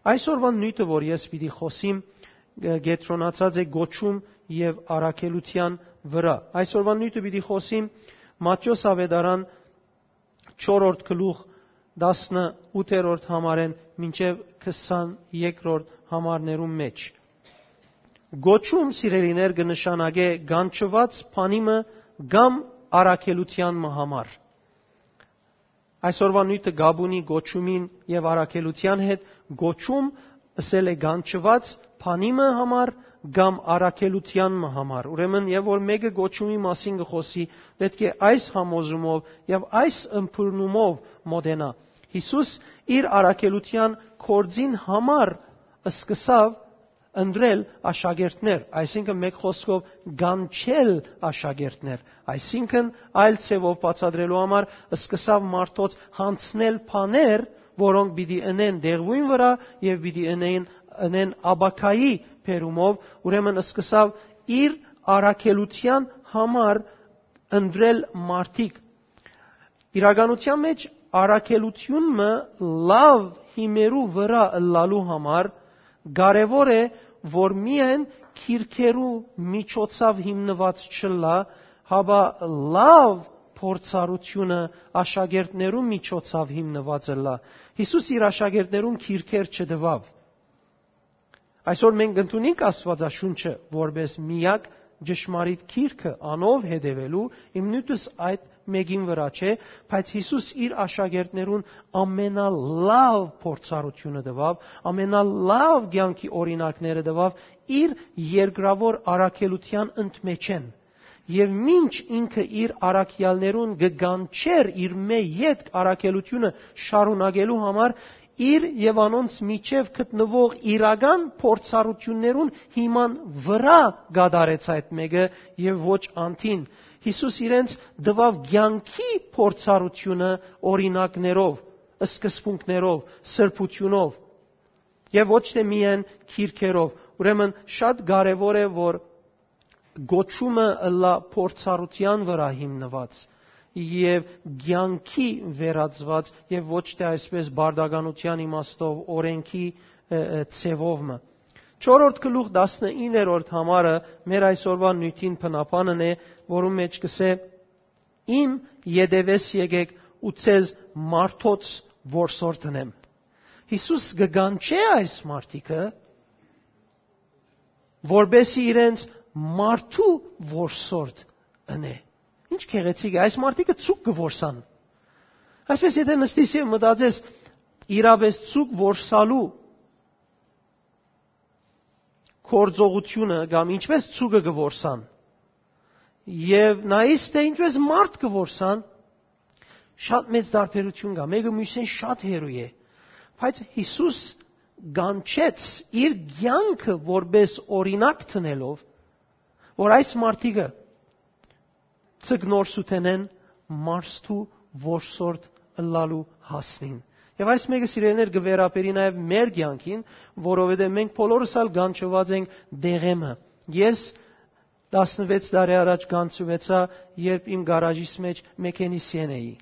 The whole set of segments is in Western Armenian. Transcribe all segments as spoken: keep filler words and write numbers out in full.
Այսօրվան նիւթը, որ ես պիտի խօսիմ, կեդրոնացած է կոչում եւ առաքելութեան վրայ։ Այսօրվան նիւթը պիտի խօսիմ Մատթէոս աւետարան չորրորդ գլուխ, տասնութերորդ համարէն մինչեւ քսաներկրորդ համարներուն մէջ։ Կոչում, սիրելիներ, կը նշանակէ կանչուած բանի մը կամ առաքելութեան մը համար։ Այսօրվա նիւթը կապ ունի կոչումին եւ առաքելութեան հետ։ Կոչում, ըսել է, կանչուած բանի մը համար կամ առաքելութեան մը համար։ Ուրեմն, եւ որ մէկը կոչումի մասին կը խօսի, պէտք է այս համոզումով եւ այս ըմբռնումով մոտենայ։ Յիսուս իր առաքելութեան գործին համար սկսաւ ընտրել աշակերտներ, այսինքն, մէկ խօսքով, կանչել աշակերտներ, այսինքն, այլ ձեւով բացատրելու համար, սկսաւ մարդոց յանձնել բաներ, որոնք պիտի ընեն դեղուին վրայ եւ պիտի ընեն, ընեն ապագայի բերումով, ուրեմն, սկսաւ իր առաքելութեան համար ընտրել մարդիկ։ Իրականութեան մէջ, առաքելութիւն մը լաւ հիմերու վրայ ըլլալու համար կարեւոր է, որ միայն կիրքերու միջոցաւ հիմնուած չըլլայ, հապա լաւ փորձառութիւնը աշակերտներու միջոցաւ հիմնուած ըլլայ։ Յիսուս իր աշակերտներուն կիրքեր չտուաւ։ Այսօր մենք ընդունենք Աստուածաշունչը որպէս միակ ճշմարիտ գիրքը, անով հետեւելու, իմ նիւթս այդ մէկին վրայ չէ, բայց Յիսուս իր աշակերտներուն ամենալաւ փորձառութիւնը տուաւ, ամենալաւ կեանքի օրինակները տուաւ իր երկրաւոր առաքելութեան ընդմէջէն։ Եւ մինչ ինքը իր առաքեալներուն կը կանչէր իրմէ ետք առաքելութիւնը շարունակելու համար, իր եւ անոնց միջեւ գտնուող իրական փորձառութիւններուն հիման վրայ կատարեց այդ մէկը եւ ոչ անդին։ Յիսուս իրենց տուաւ կեանքի փորձառութիւնը օրինակներով, սկզբունքներով, սրբութիւնով եւ ոչ թէ միայն կիրքերով։ Ուրեմն շատ կարեւոր է, որ կոչումը ըլլայ փորձառութեան վրայ հիմնուած եւ կեանքի վերածուած եւ ոչ թէ այսպես պարտականութեան իմաստով օրենքի, ը, ը, ձևով մը։ Չորրորդ գլուխ, տասնիններորդ համարը մեր այսօրվա նիւթին բնաբանն է, որուն մէջ կ'ըսէ. «Իմ ետեւէս եկէք ու ձեզ մարդոց որսորդ ընեմ»։ Յիսուս կը կանչէ այս մարդիկը, որպէսզի իրենց մարդու որսորդ ընէ։ Ինչ գեղեցիկ է, այս մարդիկը ձուկ կը որսան։ Այսպես, եթէ նստիս եւ մտածես, իրապէս ձուկ որսալու գործողութիւնը կամ ինչպես ձուկը կը որսան, եւ նայիս, թէ ինչպես մարդ կը որսան, շատ մեծ տարբերութիւն կայ, մէկը միւսէն շատ հեռու է, բայց Յիսուս կանչեց իր կեանքը որպէս օրինակ դնելով, որ այս մարդիկը ձկնորսութենէն մարդու որսորդ ըլլալու հասնին։ Եւ այս մէկը, սիրելիներ, կը վերաբերի նաեւ մեր կեանքին, որովհետեւ մենք բոլորս ալ կանչուած ենք դեղեմը։ Ես տասնվեց տարի առաջ կանչուեցայ, երբ իմ գարաժիս մէջ մեքենիսիեն էի։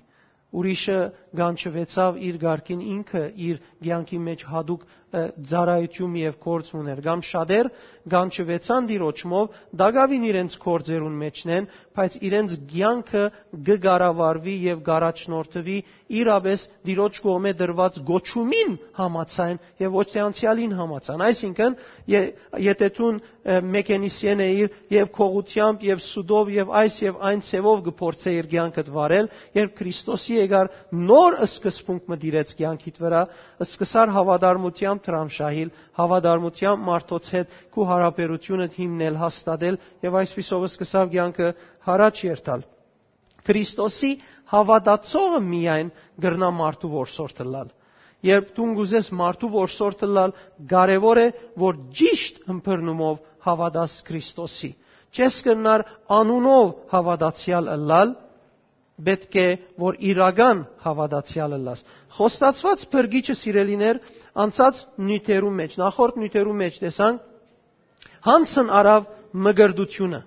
Ուրիշը կանչուեցաւ իր կարգին, ինքը իր կեանքի մէջ յատուկ, ը, ծառայութիւն եւ գործ մը ունէր, կամ շատեր կանչուեցան Տիրոջմով, տակաւին իրենց գործերուն մէջն են, բայց իրենց կեանքը կը կառավարուի եւ կ'առաջնորդուի իրապէս Տիրոջ կողմէ տրուած կոչումին համաձայն եւ ոչ թէ անցեալին համաձայն։ Այսինքն, ե-, եթէ դուն, ը, մեքենիսիեն էիր եւ քողությամբ եւ սուտով եւ այս եւ այն ձեւով կը փորձէիր կեանքդ վարել, երբ Քրիստոսի եկար, նոր սկզբունք մը տիրեց կեանքիդ վրայ, սկսար հաւատարմութեամբ դրամշահիլ, հաւատարմութեամբ մարդոց հետ քու յարաբերութիւնդ հիմնել, հաստատել եւ այսպիսով սկսաւ կեանքը յառաջ երթալ։ Քրիստոսի հաւատացողը միայն կրնայ մարդու որսորդ ըլլալ։ Երբ դուն կ'ուզես մարդու որսորդ ըլլալ, կարեւոր է, որ ճիշտ ըմբռնումով հաւատաս Քրիստոսի։ Չես կրնար անունով հաւատացեալ ըլլալ, պէտք է, որ իրական հաւատացեալ ըլլաս։ Խոստացուած փրկիչը, սիրելիներ, անցած նիւթերու մէջ, նախորդ նիւթերու մէջ տեսանք, յանձն առաւ մկրտութիւնը։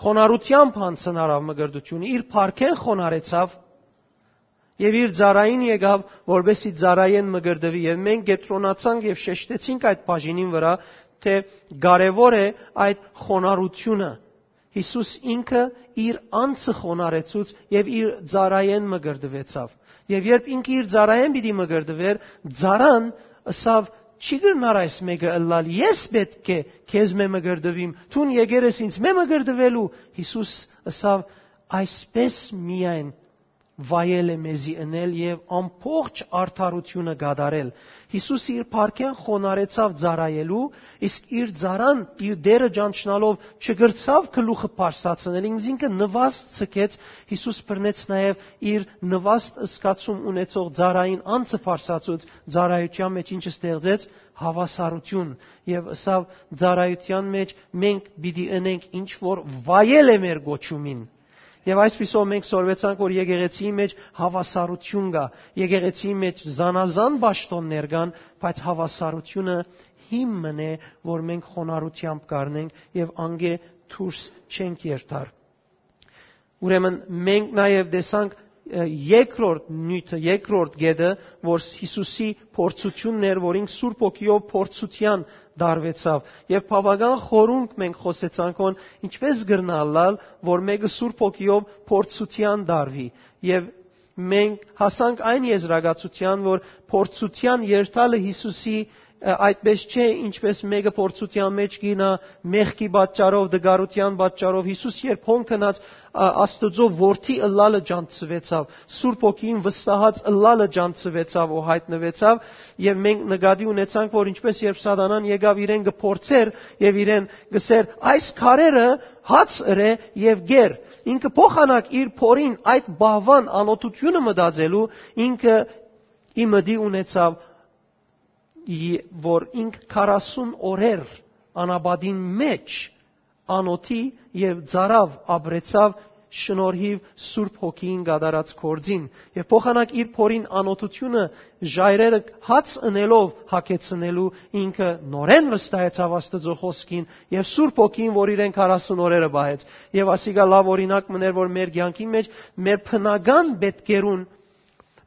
Խոնարհութեամբ յանձն առաւ մկրտութիւնը, իր փառքէն խոնարհեցաւ Եւ իր ծառային եկաւ, որպեսզի ծառայէն մկրտուի։ Եւ մենք կեդրոնացանք եւ շեշտեցինք այդ բաժինին վրայ, թէ կարեւոր է այդ խոնարհութիւնը։ Յիսուս ինքը իր անձը խոնարհեցուց եւ իր ծառայէն մկրտուեցաւ։ Եւ երբ ինքը իր ծառայէն պիտի մկրտուէր, ծառան ըսաւ. «Չի կրնար այս մէկը ըլլալ, ես պէտք է քեզմէ մկրտուիմ, դուն եկեր ես ինձմէ մկրտուելու»։ Յիսուս ըսաւ. «Այսպէս միայն վայել է մեզի ընել եւ ամբողջ արդարութիւնը կատարել»։ Յիսուս իր փառքէն խոնարհեցաւ ծառայելու, իսկ իր ծառան, իր Տէրը ճանչնալով, չկրցաւ գլուխը բարձրացնել, ինքզինքը նուաստ ցկեց։ Յիսուս բռնեց նաեւ իր նուաստ զգացում ունեցող ծառային անձը բարձրացուց, ծառայութեան մէջ ինչ ստեղծեց, հաւասարութիւն, եւ ըսաւ. «Ծառայութեան մէջ մենք պիտի ընենք ինչ որ վայել է մեր կոչումին»։ Եւ այսպիսով մենք սորվեցանք, որ եկեղեցիի մէջ հաւասարութիւն կայ, եկեղեցիի մէջ զանազան պաշտօններ կան, բայց հաւասարութիւնը հիմնն է, որ մենք խոնարհութեամբ կ'առնենք եւ անկէ դուրս չենք երթար։ Ուրեմն մենք նաեւ տեսանք, ը, երկրորդ նիւթը, երկրորդ կետը, որ Յիսուսի փորձութիւնն էր, որ ինք Սուրբ Հոգիով փորձութեան տարուեցաւ։ Եւ բաւական խորունկ մենք խօսեցանք հոն, ինչպէս կրնայ ըլլալ, որ մէկը Սուրբ Հոգիով փորձութեան տարուի։ Եւ մենք հասանք այն եզրակացութեան, որ փորձութեան երթալը Յիսուսի, ը, այդպէս չէ, ինչպէս մէկը փորձութեան մէջ կ'իյնայ մեղքի պատճառով, դգարութեան պատճառով։ Յիսուս երբ հոն գնաց, ա, Աստուծոյ որդի ըլլալը ճանչցուեցաւ, Սուրբ Հոգիին վստահած ըլլալը ճանչցուեցաւ ու յայտնուեցաւ, եւ մենք նկատի ունեցանք, որ ինչպէս երբ Սատանան եկաւ իրեն կը փորձէր եւ իրեն կ'ըսէր. «Այս քարերը հաց ըրէ եւ կեր»։ Ինքը փոխանակ իր փորին այդ բահուան անօթութիւնը մտածելու, ինքը ի մտի ունեցաւ, ի-, որ ինք քառասուն օրեր անապատին մէջ անօթի եւ ծառաւ ապրեցաւ շնորհիւ Սուրբ Հոգիին կատարած գործին, եւ փոխանակ իր փորին անօթութիւնը ժայռերը հաց ընելով հագեցնելու, ինքը նորէն վստահեցաւ Աստուծոյ խօսքին եւ Սուրբ Հոգիին, որ իրեն քառասուն օրերը պահեց։ Եւ ասիկա լաւ օրինակ մըն էր, որ մեր կեանքին մէջ մեր բնական պէտքերուն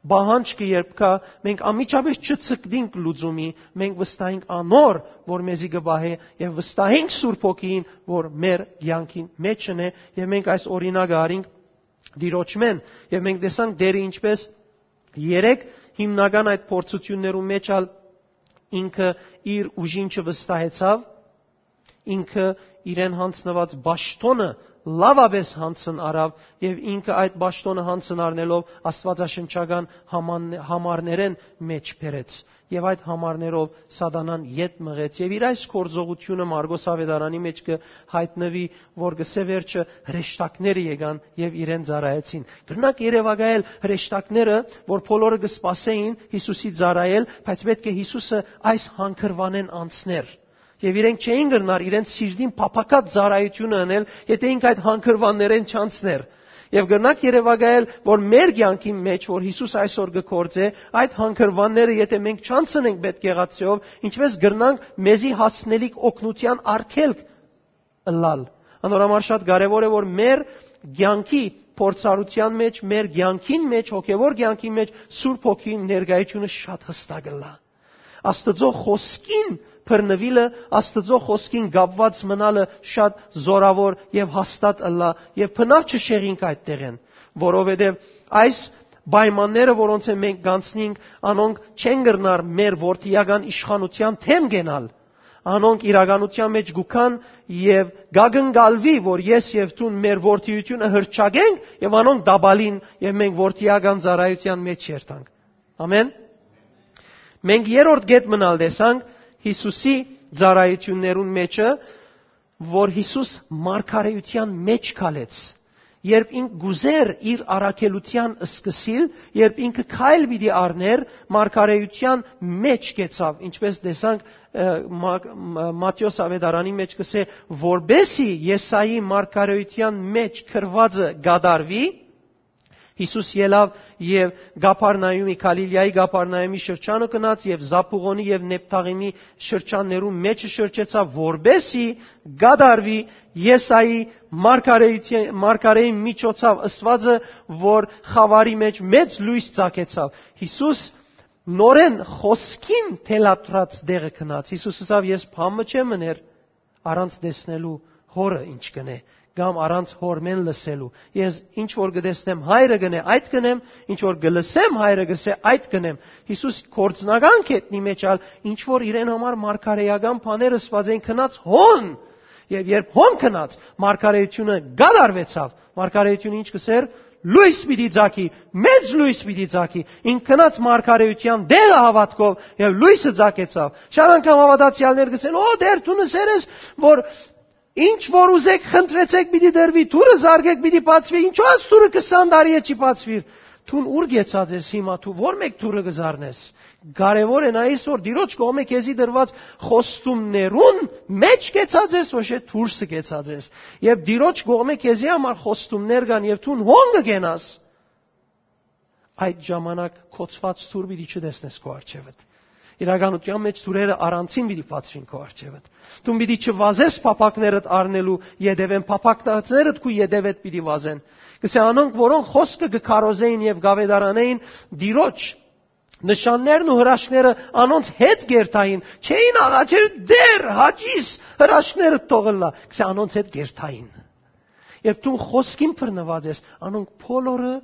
պահանջքը երբ կայ, մենք անմիջապէս չցկտինք լուծումի, մենք վստահենք անոր, որ մեզի կը պահէ, եւ վստահենք Սուրբ Հոգիին, որ մեր կեանքին մէջն է, եւ մենք այս օրինակը առինք Տիրոջմէն, եւ մենք տեսանք Տէրը ինչպէս երեք հիմնական այդ փորձութիւններու մէջ ալ ինքը իր ուժին չվստահեցաւ, ինքը իրեն յանձնուած պաշտօնը լաւապէս յանձն առաւ, եւ ինքը այդ պաշտօնը յանձն առնելով աստուածաշնչական համան-, համարներէն մէջ բերեց, եւ այդ համարներով Սատանան ետ մղեց, եւ իր այս գործողութիւնը Մարկոս Աւետարանի մէջ կը յայտնուի, որ կ'ըսէ վերջը հրեշտակները եկան եւ իրեն ծառայեցին։ Կրնակ երեւակայել հրեշտակները, որ բոլորը կը սպասէին Յիսուսի ծառայել, բայց պէտք է Յիսուսը այս հանգրուանէն անցներ։ Եւ իրենք չէին կրնար իրենց սիրտին փափաքած ծառայութիւնը ընել, եթէ ինք այդ հանգրուաններէն չանցներ։ Եւ կրնակ երեւակայել, որ մեր կեանքին մէջ, որ Յիսուս այսօր կը գործէ, այդ հանգրուանները, եթէ մենք չանցնենք պէտք եղածեով, ինչպէս կրնանք մեզի հասնելիք օգնութեան արգելք ըլլալ։ Անոր համար շատ կարեւոր է, որ մեր կեանքի փորձառութեան մէջ, մեր կեանքին մէջ, հոգեվոր կեանքին մէջ Սուրբ Հոգին ներկայությունը շատ յստակ ըլլայ։ Աստուծոյ խօսքին բռնուիլը, Աստուծոյ խօսքին կապուած մնալը շատ զօրաւոր եւ հաստատ ըլլայ, եւ բնաւ չշեղինք այդ տեղէն, որովհետեւ այս պայմանները, որոնցէ մենք կանցնենք, անոնք չեն կրնար մեր որդիական իշխանութեան դէմ կենալ։ Անոնք իրականութեան մէջ կու գան եւ կակնկալուի, որ ես եւ դուն մեր որդիությունը հրճակենք եւ անոնք տապալին, եւ մենք որդիական ծառայութեան մէջ երթանք։ Ամեն։ Մենք երրորդ կետ մնալ տեսանք Յիսուսի ծառայութիւններուն մէջը, որ Յիսուս մարգարէութեան մէջ քալեց, երբ ինք կ'ուզէր իր առաքելութեան սկսիլ, երբ ինքը քայլ պիտի առներ, մարգարէութեան մէջ կեցաւ, ինչպէս տեսանք, ը, Մա-, Մա-, Մատթէոս Աւետարանի մէջ կ'ըսէ, որպեսի Եսայի մարգարէութեան մէջ գրուածը կատարուի, Յիսուս ելաւ եւ Կափառնայումի, Գալիլիայի Կափառնայումի շրջանը գնաց եւ Զապուղոնի եւ Նեփթաղիմի շրջաններուն մէջը շրջեցաւ, որպէսզի կատարուի Եսայի մարգարէության, մարգարէին միջոցով ըսուածը, որ խաւարի մէջ մեծ լոյս ծագեցաւ։ Յիսուս նորէն խօսքին թելադրած տեղը գնաց։ Յիսուս ըսաւ. «Ես բան մը չեմ ըներ առանց տեսնելու Հօրը ինչ կ'ընէ, կամ առանց Հօրմէն լսելու։ Ես ինչ որ կը տեսնեմ, Հայրը կ'ընէ, այդ կ'ընեմ, ինչ որ կը լսեմ, Հայրը կ'ըսէ, այդ կ'ընեմ»։ Յիսուս գործնական գետնի մէջ ալ, ինչ որ իրեն համար մարգարէական բաներ ըսուած են, գնաց հոն։ Եւ երբ հոն գնաց, մարգարէությունը կատարուեցաւ։ Մարգարէությունը ինչ կ'ըսէր, լոյս պիտի ծագի, մեծ լոյս պիտի ծագի։ Ինք գնաց մարգարէության տեղը հաւատքով եւ լոյսը ծագեցաւ։ Շատ անգամ հաւատացեալներ կ'ըսեն. «Ո, Տէր, դուն ըսեր ես, որ ինչ որ ուզեք, խնդրեցեք, պիտի տրուի, դուռը զարկեք, պիտի բացուի, ինչո՞ւ այս դուռը քսան տարի է չի բացուիր»։ Դուն ո՞ւր կեցած ես հիմա, դու ո՞ր մէկ դուռը կը զարնես։ Կարեւոր է նայես, որ Տիրոջ կողմէ քեզի տրուած խոստումներուն մէջ կեցած ես, ոչ է դուրսը կեցած ես։ Երբ Տիրոջ կողմէ քեզի համար խոստումներ կան եւ դուն հոն կը կենաս, այդ ժամանակ կոչուած դուռ պիտի չտեսնես քո առջեւդ։ Իրականության մէջ դուռերը առանցին պիտի բացուին քո առջեւդ։ Դուն պիտի չվազես փափակներդ առնելու ետեւէն, փափակներդ քու ետեւեդ պիտի վազեն։ Կսե անոնք, որոնք խոսքը կը քարոզէին եւ կ'աւետարանէին, Տիրոջ նշաններն ու հրաշքները անոնց հետ կերթային, չէին աղաչեր. «Տէր, հաճիս, հրաշքներդ թող ըլլայ»։ Կսե անոնց հետ կերթային։ Երբ դու խոսքին բռնուած ես, անոնք բոլորը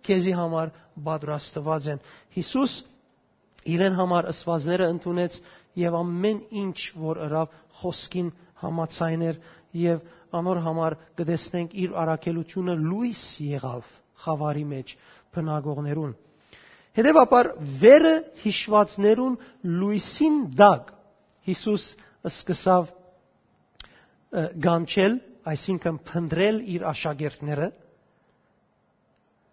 քեզի համար պատրաստուած են։ Յիսուս իրեն համար ըսուածները ընդունեց եւ ամէն ինչ որ ըրաւ, խոսքին համաձայն էր, եւ անոր համար կը տեսնենք, իր առաքելությունը լոյս եղաւ խաւարի մէջ բնակողներուն։ Հետեւաբար, վերը յիշուածներուն լոյսին տակ Յիսուս սկսաւ, ը, կանչել, այսինքն՝ փնտռել իր աշակերտները։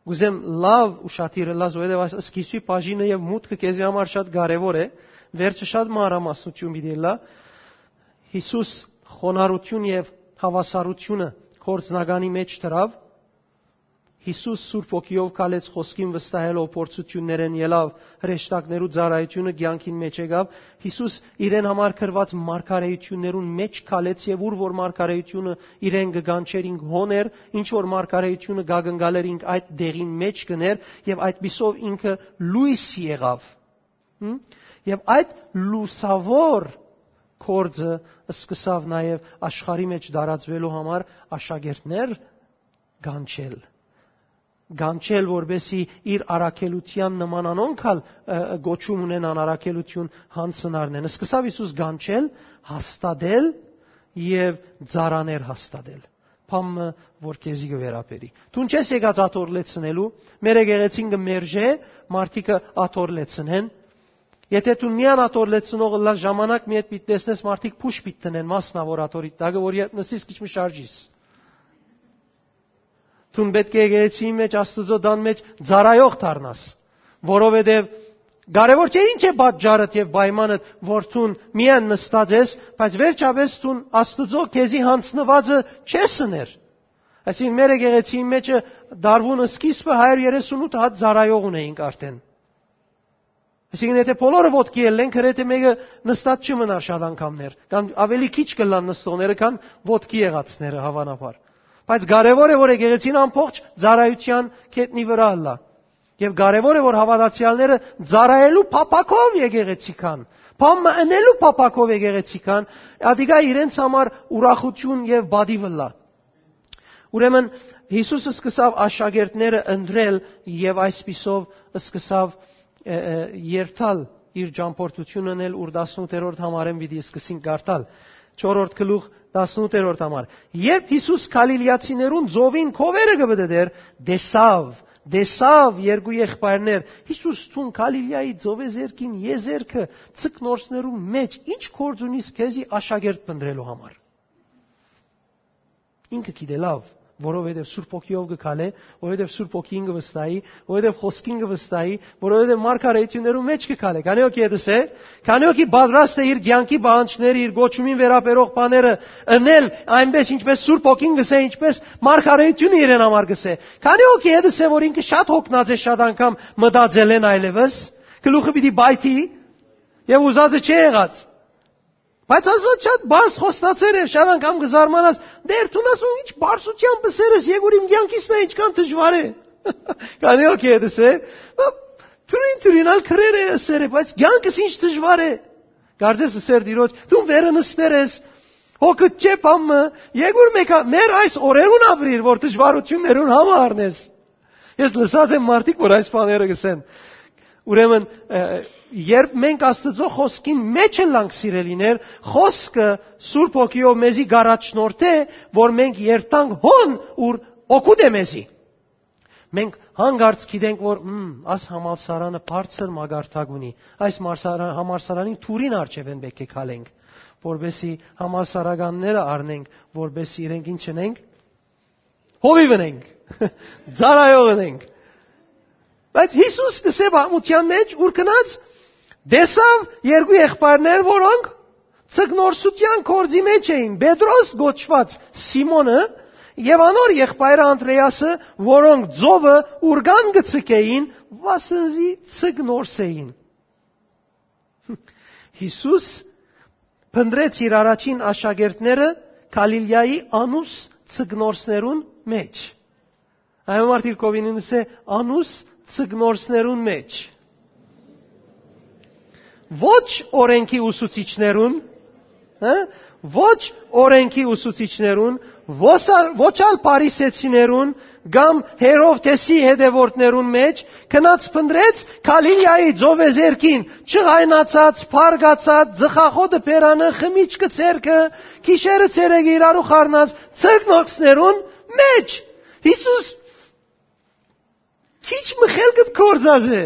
Կ'ուզեմ լաւ ուշադիր ըլլաս, որովհետեւ այս սկիզբի բաժինը եւ մուտքը քեզի համար շատ կարեւոր է։ Վերջը շատ մանրամասնություն պիտի ըլլայ։ Յիսուս խոնարհութիւն եւ հաւասարութիւնը գործնականի մէջ դրաւ։ Յիսուս Սուրբ Հոգիով քալեց, խոսքին վստահելով, փորձութիւններէն ելաւ, հրեշտակներու ծառայութիւնը կեանքին մէջ եկաւ։ Յիսուս իրեն համար գրուած մարգարէութիւններուն մէջ քալեց, եւ ուր որ մարգարէութիւնը իրեն կը կանչէր, ինք հոն էր, ինչ որ մարգարէութիւնը կ'ակնկալէր, ինք այդ տեղին մէջ կ'ընէր, եւ այդպիսով ինքը լոյս եղաւ։ Հմ? Եւ այդ լուսաւոր գործը սկսաւ նաեւ աշխարհի մէջ տարածուելու համար աշակերտներ կանչել։ Կանչել, որպեսզի իր առաքելութեան նման անոնք ալ, ը, կոչում ունենան, առաքելութիւն յանձնարնեն։ Սկսաւ Յիսուս կանչել, հաստատել եւ ծառաներ հաստատել։ Բան մը, որ քեզի կը վերաբերի։ Դուն չես եկած աթոռ լեցնելու, մեր եկեղեցին կը մերժէ մարդիկը աթոռ լեցնեն։ Եթե դուն միան աթոռ լեցնող ըլլաս, ժամանակ մի հետ պիտի տեսնես, մարդիկ փուշ պիտի դնեն, մասնաւոր աթոռի տակը, որ երբ նստիս, քիչ մը շարժիս։ Դուն պէտք է եկեղեցիի մէջ, Աստուծոյ տան մէջ ծառայող դառնաս, որովհետեւ կարեւոր չէ ինչ է պատճառդ եւ պայմանդ, որ դուն միայն նստած ես, բայց վերջապէս դուն Աստուծոյ քեզի յանձնուածը չես ըներ։ Այսինքն, մեր եկեղեցիի մէջը դարուին սկիզբը հարիւր երեսունութ հատ ծառայող ունեինք արդեն։ Այսինքն, եթե բոլորը ոտքի ելլեն, գրեթէ մէկը նստած չի մնար շատ անգամներ, կամ ավելի քիչ կ'ըլլան նստողները, քան ոտքի եղածները, հաւանաբար։ Բայց կարեւոր է, որ եկեղեցին ամբողջ ծառայութեան գետնի վրայ ըլլայ։ Եւ կարեւոր է, որ հաւատացեալները ծառայելու փափաքով եկեղեցի գան, բան մը ընելու փափաքով եկեղեցի գան, ատիկա իրենց համար ուրախութիւն եւ պատիւ ըլլայ։ Ուրեմն Յիսուս սկսաւ աշակերտները ընտրել եւ այսպիսով սկսաւ, ը, ը, երթալ, իր ճամփորդութիւնը ընել, ուր տասնութերորդ համարէն պիտի սկսին կարդալ։ Չորրորդ գլուխ, տասնութերորդ համար։ Երբ Յիսուս Գալիլիացիներուն ծովին քովերը կը պտտէր, տեսաւ, տեսաւ երկու եղբայրներ։ Յիսուս, դուն Գալիլիայի ծովեզերքին եզերքը, ձկնորսներու մէջ, ի՞նչ գործ ունիս քեզի աշակերտ փնտռելու համար։ Ինքը գիտէ լաւ, որովհետեւ Սուրբ Հոգիով կը քալէ, որովհետեւ Սուրբ Հոգին կը վստահի, որովհետեւ խօսքին կը վստահի, որովհետեւ մարգարէութիւններու մէջ կը քալէ։ Քանի՞ հոգի է դսե, քանի՞ հոգի պատրաստ է իր կեանքի պահանջները, իր կոչումին վերաբերող բաները ընել, այնպես ինչպես Սուրբ Հոգին կ'ըսէ, ինչպես մարգարէութիւնը իրեն համար կ'ըսէ։ Քանի՞ հոգի է դսե, որ ինքը շատ հոգնած է շատ անգամ մտածելէն այլեւս, գլուխը պիտի պայթի եւ ուզածը չի եղած։ Բայց Աստուած շատ բարձ խոստացեր եւ շատ անգամ կը զարմանաս, «Տէր, դուն ասում, ինչ բարձրութեան պսեր ես, եկուր իմ կեանքիս նայ, ինչքան դժուար է»։ Քանի՞ հոգի է դսե, թուրին-թուրին ալ քրեր է ըսեր է, բայց կեանքս ինչ դժուար է։ Կարծես ըսեր Տիրոջ, «Դուն վերը նստեր ես, հոգդ չէ բան մը, եկուր մեկա, մեր այս օրերուն ապրիր, որ դժվարութիւններուն համը առնես»։ Ես լսած եմ մարդիկ, որ այս բաները կ'ըսեն։ Ուրեմն, ը, երբ մենք Աստուծոյ խօսքին մէջ ըլլանք, սիրելիներ, խօսքը Սուրբ Հոգիով մեզի կ'առաջնորդէ, որ մենք երթանք հոն, ուր օգուտ է մեզի։ Մենք հանկարծ գիտենք, որ, «Մմ, աս համալսարանը բարձր մակարդակ ունի, այս մարսարա-, համալսարանին թուրին առջեւէն պէտք է քալենք, որպեսզի համալսարականները առնենք, որպեսզի իրենք ինչ ընենք, հովիւ ընենք, ծառայող ընենք»։ Բայց Յիսուս կ'ըսէ պատմութեան մէջ, ուր գնաց, տեսաւ երկու եղբայրներ, որոնք ձկնորսութեան գործի մէջ էին, Պետրոս կոչուած Սիմոնը եւ անոր եղբայրը Անդրեասը, որոնք ծովը ուրկան կը ձգէին, վասն զի ձկնորս էին։ Յիսուս փնտռեց իր առաջին աշակերտները Գալիլիայի անուս ձկնորսներուն մէջ։ Այն մարդիկ կովին ինձ է անուս ձկնորսներուն մէջ։ Ոչ օրենքի ուսուցիչներուն, հա? Ոչ օրենքի ուսուցիչներուն, ոչ ալ, ոչ ալ փարիսեցիներուն կամ Հերովդեսի հետևորդներուն մէջ, գնաց փնտռեց Գալիլիայի ծովեզերքին, չղայնացած, փարգացած, ծխախոտը բերանը, խմիչքը ձեռքը, գիշերը ցերեկը իրարու խառնած ձկնորսներուն մէջ։ Յիսուս քիչ մը խելքդ կործած է։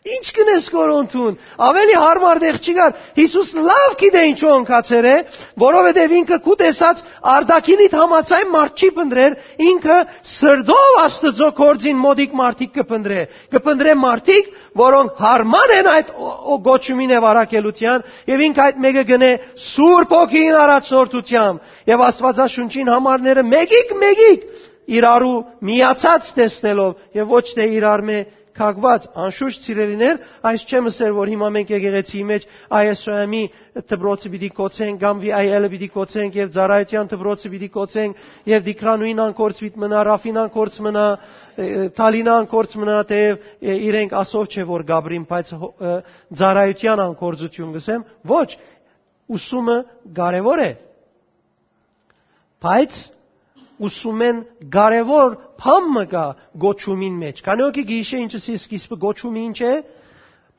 Ինչ կ'ընես կորոնթուն։ Ավելի հարմար տեղ չի գար։ Յիսուս լաւ գիտէ ինչու ընկած էր է, որովհետեւ ինքը քու տեսած արտաքինիդ համաձայն մարդ չի փնտռեր, ինքը սրտով Աստուծոյ գործին մօտիկ մարդիկ կը փնտռէ։ Կը փնտռէ մարդիկ, որոնք հարմար են այդ օ-, օ-, կոչումին եւ առաքելութեան, եւ ինքը այդ մէկը կ'ընէ Սուրբ Հոգին առաջնորդութեամբ եւ Աստուածաշունչին համարները մեկիկ-մեկիկ իրարու միացած տեսնելով եւ ոչ թէ իրար մէ քակուած։ Անշուշտ, սիրելիներ, այս չեմ ըսեր, որ հիմա մենք եկեղեցիի մէջ I S O M-ի դպրոցը պիտի կոչենք կամ V I L-ը պիտի կոչենք եւ ծառայութեան դպրոցը պիտի կոչենք եւ Տիգրանուին անկորձ պիտի մնայ, Ռաֆին անկորձ մնայ, ը, Թալինը անկորձ մնայ, թէեւ, ը, իրենք ասով չէ որ գաբրին, բայց հո-, ը, ծառայութեան անկորձութիւն կ'ըսեմ։ Ոչ, ուսումը կարեւոր է, բայց ուսումէն կարեւոր բան մը կայ կոչումին մէջ։ Քանի՞ հոգի գիշե ինչ ըսի սկիզբը, կոչումը ինչ է։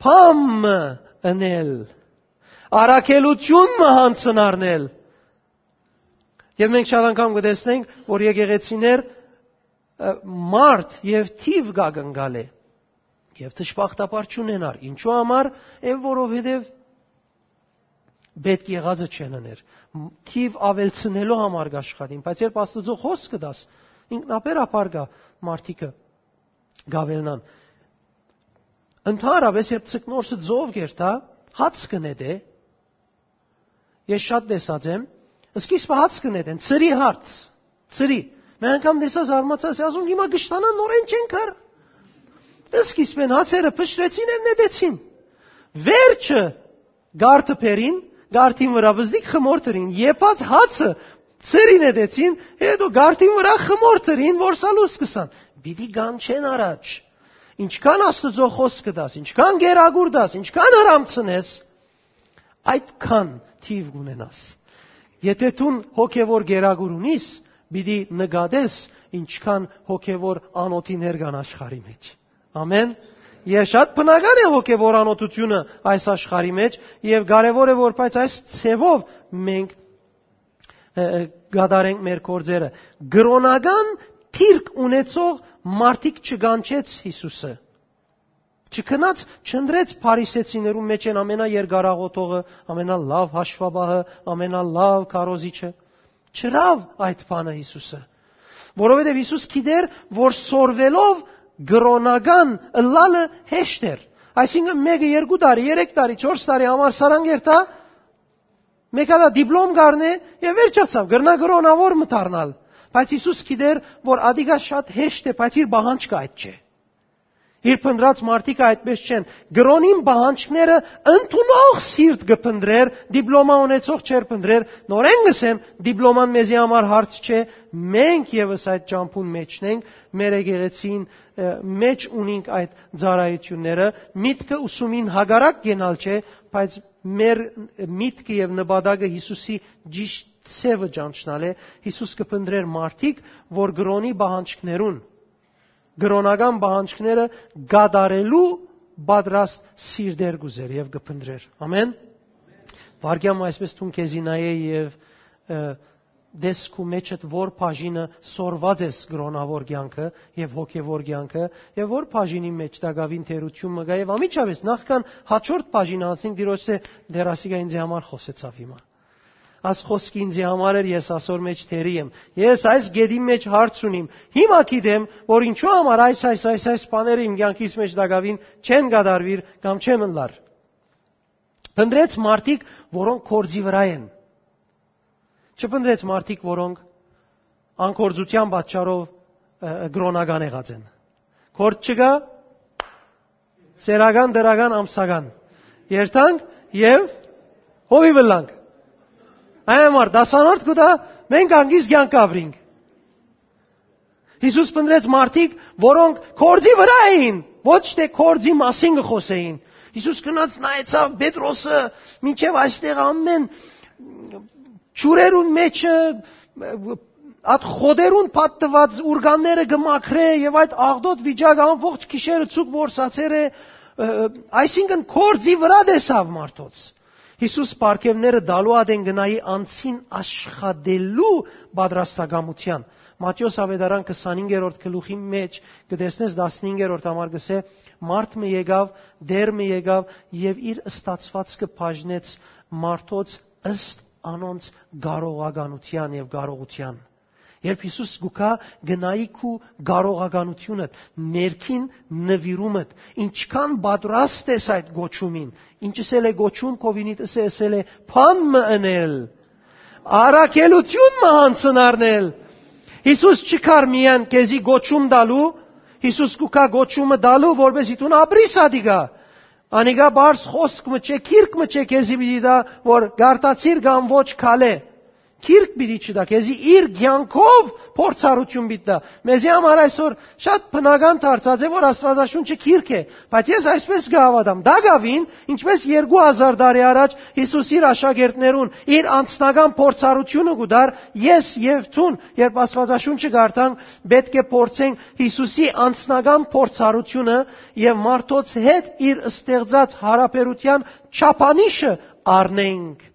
Բան մը ընել, առաքելութիւն մը յանձնարնել։ Եւ մենք շատ անգամ կը տեսնենք, որ եկեղեցիներ, ը, մարդ եւ թիւ կը կնկալէ, եւ դժբախտաբար չունենար։ Ինչու համար է, որովհետեւ պէտք եղածը չեն ըներ։ Մ-, թիւ աւելցնելու համար կ'աշխատին, բայց երբ Աստուծոյ խօսքը դաս, ինքնաբերաբար կայ մարդիկը կ'աւելնան։ Ընդհանրապես, երբ ձկնորսը ծով կերթայ, հաց կը նետէ, ես շատ տեսած եմ, սկիզբը հաց կը նետեն, ծրի հարց, ծրի։ Մէկ անգամ տեսա, զարմացա, ասի, ասում, «Հիմա կշտանան, նորեն չեն կար»։ Սկիզբեն հացերը փշրեցին եւ նետեցին։ Վերջը գարդը բերին, գարդին վրայ բզդիկ խմոր դրին, եփած հացը ծրի նետեցին, հետո գարդին վրայ խմոր դրին, որ սալուս կսան։ Պիտի կանչեն առաջ։ Ինչքան Աստուծոյ խօսքը դաս, ինչքան գերագուր դաս, ինչքան հրամցնես, այդքան թիվ կունենաս։ Եթե դուն հոգեվոր գերագուր ունիս, պիտի նկատես, ինչքան հոգեվոր անոթիներ կան աշխարհի մեջ։ Ամեն։ Եւ շատ բնական է հոգեվոր անոթությունը այս աշխարհի մեջ, եւ կարեւոր է, որ բայց այս ձևով մենք, ը, ը, կատարենք մեր գործերը։ Կրոնական դիրք ունեցող մարդիկ չկանչեց Յիսուսը։ Չքնած, չընտրեց փարիսեցիներուն մեջ են ամենաերկարաղոթողը, ամենալավ հաշվապահը, ամենալավ քարոզիչը։ Չրավ այդ բանը Յիսուսը։ Որովհետեւ Յիսուս գիտեր, որ սորվելով կրօնական ըլլալը հեշտ էր։ Այսինքն, մէկը երկու տարի, երեք տարի, չորս տարի համար սարան կերթայ, մէկ հատա դիպլոմ կառնէ եւ վերջացաւ, կրնայ կրօնաւոր մը դառնալ։ Բայց Յիսուս գիտեր, որ ադիկա շատ հեշտ է, բայց իր պահանջքը այդ չէ։ Իր փնտռած մարդիկը այդպէս չեն։ Կրօնին պահանջները ընդունող սիրտ կը փնտռէր, դիպլոմա ունեցող չէր փնտռեր։ Նորէն կ'ըսեմ, դիպլոման մեզի համար հարց չէ։ Մենք եւս այդ ճամբուն մէջն ենք, մեր եկեղեցին, ը, մէջ ունինք այդ ծառայութիւնները։ Միտքը ուսումին հակառակ կենալ չէ, բայց մեր միտքը եւ նպատակը Յիսուսի ճիշդ սեւը ճանչնալ է։ Յիսուս կը փնտռէր մարդիկ, որ կրօնի պահանջներուն, կրօնական պահանջները կատարելու պատրաստ սիրտեր կ'ուզեր եւ կը փնտռէր։ Ամեն։ Վարգեան մը այսպես դուն քեզի նայէ եւ, ը, դես քու մեջդ որ բաժինը սորված ես կրօնաւոր կեանքը եւ հոգեվոր կեանքը, եւ որ բաժինի մեջ տակաւին թերութիւն մը կայ, եւ ամիջապէս նախքան հաջորդ բաժինը անցնենք, Տիրոջը դեռ ասիկա ինձի համար խօսեցաւ հիմա։ Աս խոսքը ինձի համար էր, ես ասոր մեջ թերի եմ։ Ես այս գետին մեջ հարց ունիմ։ Հիմա գիտեմ, որ ինչու համար այս, այս, այս, այս բաները իմ կեանքիս մեջ տակաւին չեն կատարուիր կամ չեմ ըլլար։ Փնտռեց մարդիկ, որոնք կորձի վրայ են։ Չփնտռեց մարդիկ, որոնք անկորձութեան պատճառով, ը, կրօնական եղած են։ Կորձ չկայ, սերական, դրական, ամսական։ Երթանք եւ հովիւ ըլլանք։ Այն համար դասանորդ կու տայ, մենք անգիս կեանք ապրինք։ Յիսուս փնտռեց մարդիկ, որոնք կորձի վրայ էին, ոչ թէ կորձի մասին կը խօսէին։ Յիսուս գնաց նայեցաւ Պետրոսը, մինչեւ այստեղ ամեն ջուրերուն մեջը, ատ խոտերուն փաթթուած ուրկանները կը մաքրէ եւ այդ աղտոտ վիճակը ամբողջ գիշերը ցուկ որսացեր է, ը, այսինքն կորձի վրայ տեսաւ մարդոց։ Յիսուս պարգեւները տալու ատեն գնայի անցին աշխատելու պատրաստակամութեան։ Մատթէոս Աւետարան քսանհինգերորդ գլուխի մեջ կը տեսնես, տասնհինգերորդ համար կ'ըսէ. «Մարդ մը եկաւ, Տէր մը եկաւ եւ իր ստացուածքը բաժնեց մարդոց ըստ անոնց կարողականութեան եւ կարողութեան»։ Երբ Յիսուս կու գայ, գնայի քու կարողականութիւնդ, ներքին նուիրումդ, ինչքան պատրաստ ես այդ կոչումին, ինչ ըսել է կոչում, քովինիդ ըսե, ըսել է. «Բան մը ընել, առաքելութիւն մը յանցնարնել»։ Յիսուս չի գար միայն քեզի կոչում տալու, Յիսուս կու գայ կոչումը տալու, որպեսզի դուն ապրիս ադիկա։ Անիկա բարձ խոսք մը չէ, գիրք մը չէ քեզի պիտի տայ, որ կարդացիր կամ ոչ քալէ։ Գիրք պիտի չտայ քեզի, իր կեանքով փորձառութիւն պիտի տայ։ Մեզի համար այսօր շատ բնական դարձած է, որ Աստուածաշունչը գիրք է, բայց ես այսպես կը հաւատամ. տակաւին, ինչպես երկու հազար տարի առաջ Յիսուս իր աշակերտներուն իր անձնական փորձառութիւնը կու տար, ես եւ դուն, երբ Աստուածաշունչը կարդանք, պէտք է փորձենք Յիսուսի անձնական փորձառութիւնը եւ մարդոց հետ իր ստեղծած յարաբերութեան չափանիշը առնենք,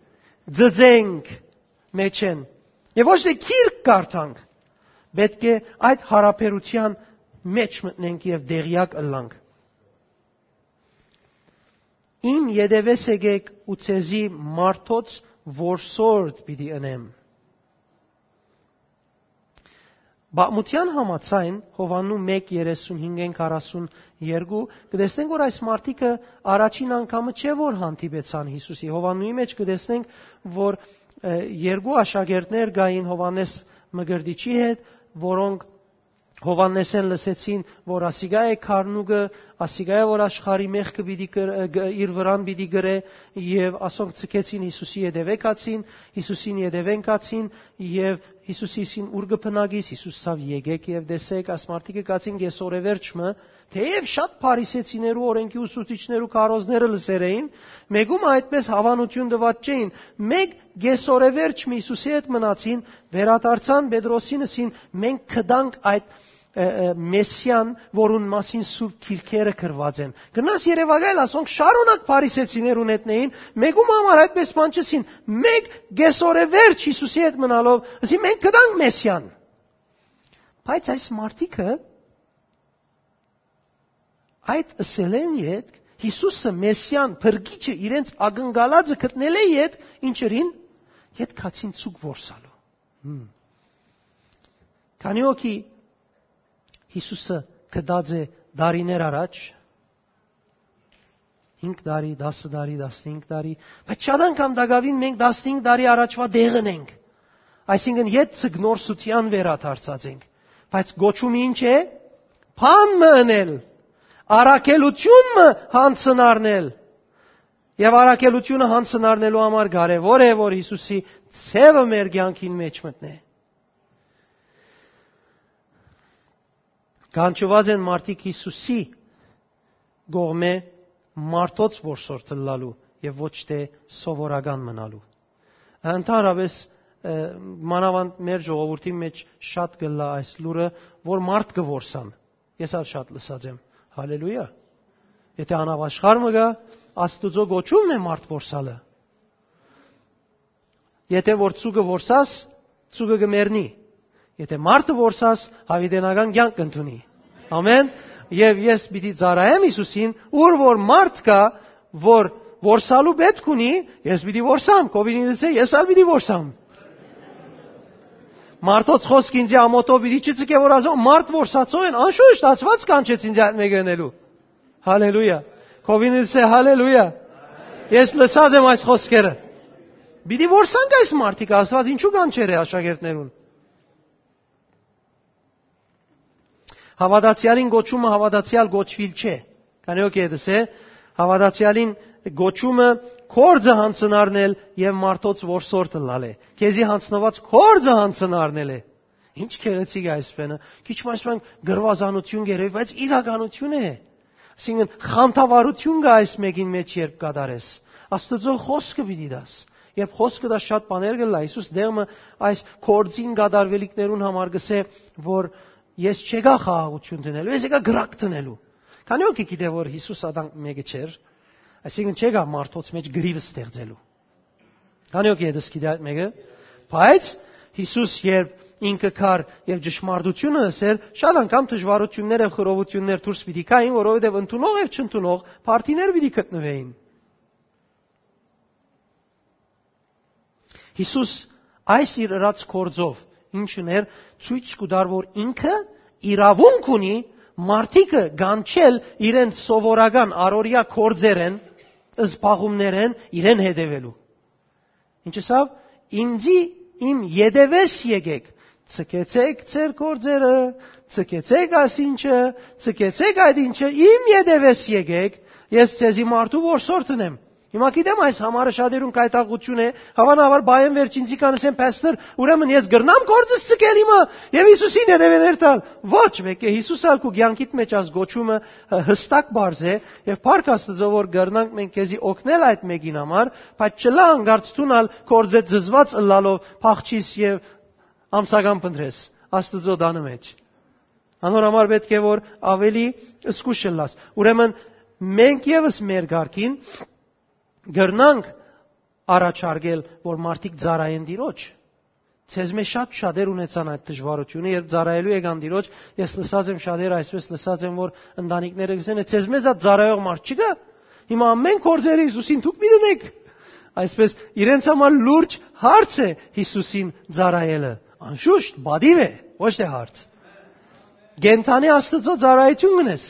ծծենք մեջեն։ Եւ ոչ թէ գիրք կարդանք, պէտք է այդ յարաբերութեան մեջ մտնենք եւ տեղյակ ըլլանք։ «Իմ ետեւէս եկեք ու ձեզի մարդոց որսորդ պիտի ընեմ»։ Պատմութեան համաձայն, Յովհաննու մէկ երեսունհինգ, քառասուն երկու, կը տեսնենք, որ այս մարդիկը առաջին անգամը չէ, որ հանդիպեցան Յիսուսի։ Յովհաննուի մեջ կը տեսնենք, որ, ը, երկու աշակերտներ կային Յովհաննէս Մկրտիչի հետ, որոնք Յովհաննէսէն լսեցին, որ ասիկա է քարնուկը, ասիկա է, որ աշխարհի մեղքը պիտի կր-, ը, գ-, իր վրան պիտի կրէ, եւ ասոնք ձգեցին Յիսուսի ետեւէ գացին, Յիսուսին ետեւէն գացին, եւ Յիսուսին: «Ո՞ւր կը բնակիս»։ Յիսուս ասաւ. «Եկեք եւ տեսէք»։ Այս մարդիկը գացին կեսօրեվերջ մը, թէեւ շատ փարիսեցիներու, օրէնքի ուսուցիչներու քարոզները լսեր էին, մէկու մը այդպէս հաւանութիւն տուած չէին, մէկ կեսօրեվերջ մը Յիսուսի հետ մնացին, վերադարձան Պետրոսին, ըսին. «Մենք կտանք այդ, ը, ը, Մեսիան, որուն մասին Սուրբ Գիրքերը գրուած են»։ Գնաս երեւակայել, ասոնք շարունակ փարիսեցիներուն հետ էին, մէկու մը համար այդպէս բան չըսին, մէկ կեսօրեվերջ Յիսուսի հետ մնալով, ըսին. «Մենք կտանք Մեսիան»։ Բայց այս մարդիկը այդ ըսելէն ետք, Յիսուսը, Մեսիան, փրկիչը, իրենց ակնկալածը գտնելէ ետք, ինչ ըրին, ետք գացին ցուկ որսալու։ Հմ։ Քանի՞ հոգի Յիսուսը գտած է տարիներ առաջ, հինգ տարի, տասը տարի, տասնհինգ տարի, բայց շատ անգամ տակաւին մենք տասնհինգ տարի առաջվա տեղն ենք, այսինքն՝ յետ ձկնորսութեան վերադարձած ենք, բայց կոչումը ի՞նչ է։ Բան մը ընել, առաքելութիւն մը յանձն առնել։ Եւ առաքելութիւնը յանձն առնելու համար կարեւոր է, որ Յիսուսի ձեւը մեր կեանքին մէջ մտնէ։ Կանչուած են մարդիկ Յիսուսի կողմէ մարդոց որսորդ ըլլալու եւ ոչ թէ սովորական մնալու։ Ընդհանրապէս, ը, մանաւանդ մեր ժողովուրդի մէջ շատ կ'ըլլայ այս լուրը, որ մարդ կը որսան։ Ես ալ շատ լսած եմ։ Հալելույա։ Եթէ անաշխարհ մը կայ, Աստուծոյ կոչումն է մարդ որսալը։ Եթէ որ ձուկը որսաս, ձուկը կը մեռնի։ Եթէ մարդը որսաս, յաւիտենական կեանք կ'ընդունի։ Ամեն։ Եւ ես պիտի ծառայեմ Յիսուսին, ուր որ մարդ կայ, որ որսալու պէտք ունի, ես պիտի որսամ, քովին ինձ է, ես ալ պիտի որսամ։ Մարդոց խօսք ինձի ամօթով պիտի չցկէ, որ ասեմ, մարդ որսածոյ են, անշուշտ, Աստուած կանչեց ինձ այդ մէկը ընելու։ Հալելույա։ Քովին ինձ է, հալելույա։ Ես լսած եմ այս խօսքերը։ Պիտի որսանք այս մարդիկ, Աստուած ինչու կանչեր է աշակերտներուն։ Հաւատացեալին կոչումը հաւատացեալ կոչուիլ չէ։ Քանի՞ հոգի ետս է, հաւատացեալին կոչումը կործը յանձն առնել եւ մարդոց որսորդ ըլլալ է։ Քեզի յանձնուած կործը յանձն առնել է։ Ինչ գեղեցիկ է այս բանը։ Քիչ մաշման գրուազանություն գերեւի, բայց իրականություն է։ Այսինքն՝ խանդավառություն կա այս մէկին մէջ, երբ կատարես։ Աստուծոյ խօսքը պիտի տաս։ Երբ խօսքը տաս, շատ բաներ կ'ըլլայ։ Յիսուս դեղմը այս կործին կատարուելիքներուն համար կ'ըսէ, որ ես չեկայ խաղաղություն դնելու, ես եկայ կրակ դնելու։ Քանի՞ հոգի գիտէ, որ Յիսուս ադանք մէկը չէր, այսինքն՝ չեկայ մարդոց մէջ գրիվ ստեղծելու։ Քանի՞ հոգի ետս գիտէ այդ մէկը։ Բայց Յիսուս, երբ ինքը կար եւ ճշմարտությունը ըսեր, շատ անգամ դժուարություններ եւ խռովություններ դուրս պիտի գային, որովհետեւ ընդունող եւ չընդունող փարթիներ պիտի գտնուէին։ Յիսուս այս իր ըրած կործով ինչ ուներ, ցոյց կու տար, որ ինքը իրաւունք ունի մարդիկը կանչել իրեն սովորական առօրեայ կործերէն, զբաղումներէն իրեն հետեւելու։ Ինչ ըսաւ։ «Ինձի իմ ետևէս եկեք, ցկեցեք ձեր կործերը, ցկեցեք այս ինչը, ցկեցեք այդ ինչը, իմ ետևէս եկեք, ես ձեզի մարդու որսորդն եմ»։ Հիմա գիտեմ, այս համարը շատերուն կայտաղություն է, հավանաբար, բան վերջինցի կանսեն. «Փաստոր, ուրեմն ես կրնա՞մ կործս ցկել հիմա եւ Յիսուսին հետեւեներ տալ»։ Ոչ, մէկէ Յիսուս ալ քու կեանքիդ մէջ այս կոչումը, ը, յստակ բարձ է, եւ փառք Աստուծոյ, որ կրնանք մենք քեզի օգնել այդ մէկին համար, բայց չլա անկարծ դուն ալ կործեզզուած ըլլալով փախչիս եւ ամսական փնտրես Աստուծոյ տանը մէջ։ Անոր համար պէտք է, որ ավելի զգուշ ըլլաս։ Ուրեմն մենք եւս մեր կարգին կրնանք առաջարկել, որ մարդիկ ծառայեն Տիրոջ։ Ձեզմէ շատ շատեր ունեցան այդ դժվարությունը, երբ ծառայելու եկան Տիրոջ, ես լսած եմ շատեր, այսպես լսած եմ, որ ընտանիքները կ'ըսեն. «Ձեզմէ զատ ծառայող մարդ չկա։ Հիմա ամեն կործերը Յիսուսին դուք պիտի դնեք»։ Այսպես, իրենց համար լուրջ հարց է Յիսուսին ծառայելը։ Անշուշտ, պատիւ է, ոչ թէ հարց։ Կենդանի Աստուծոյ ծառայութիւն կ'ընես։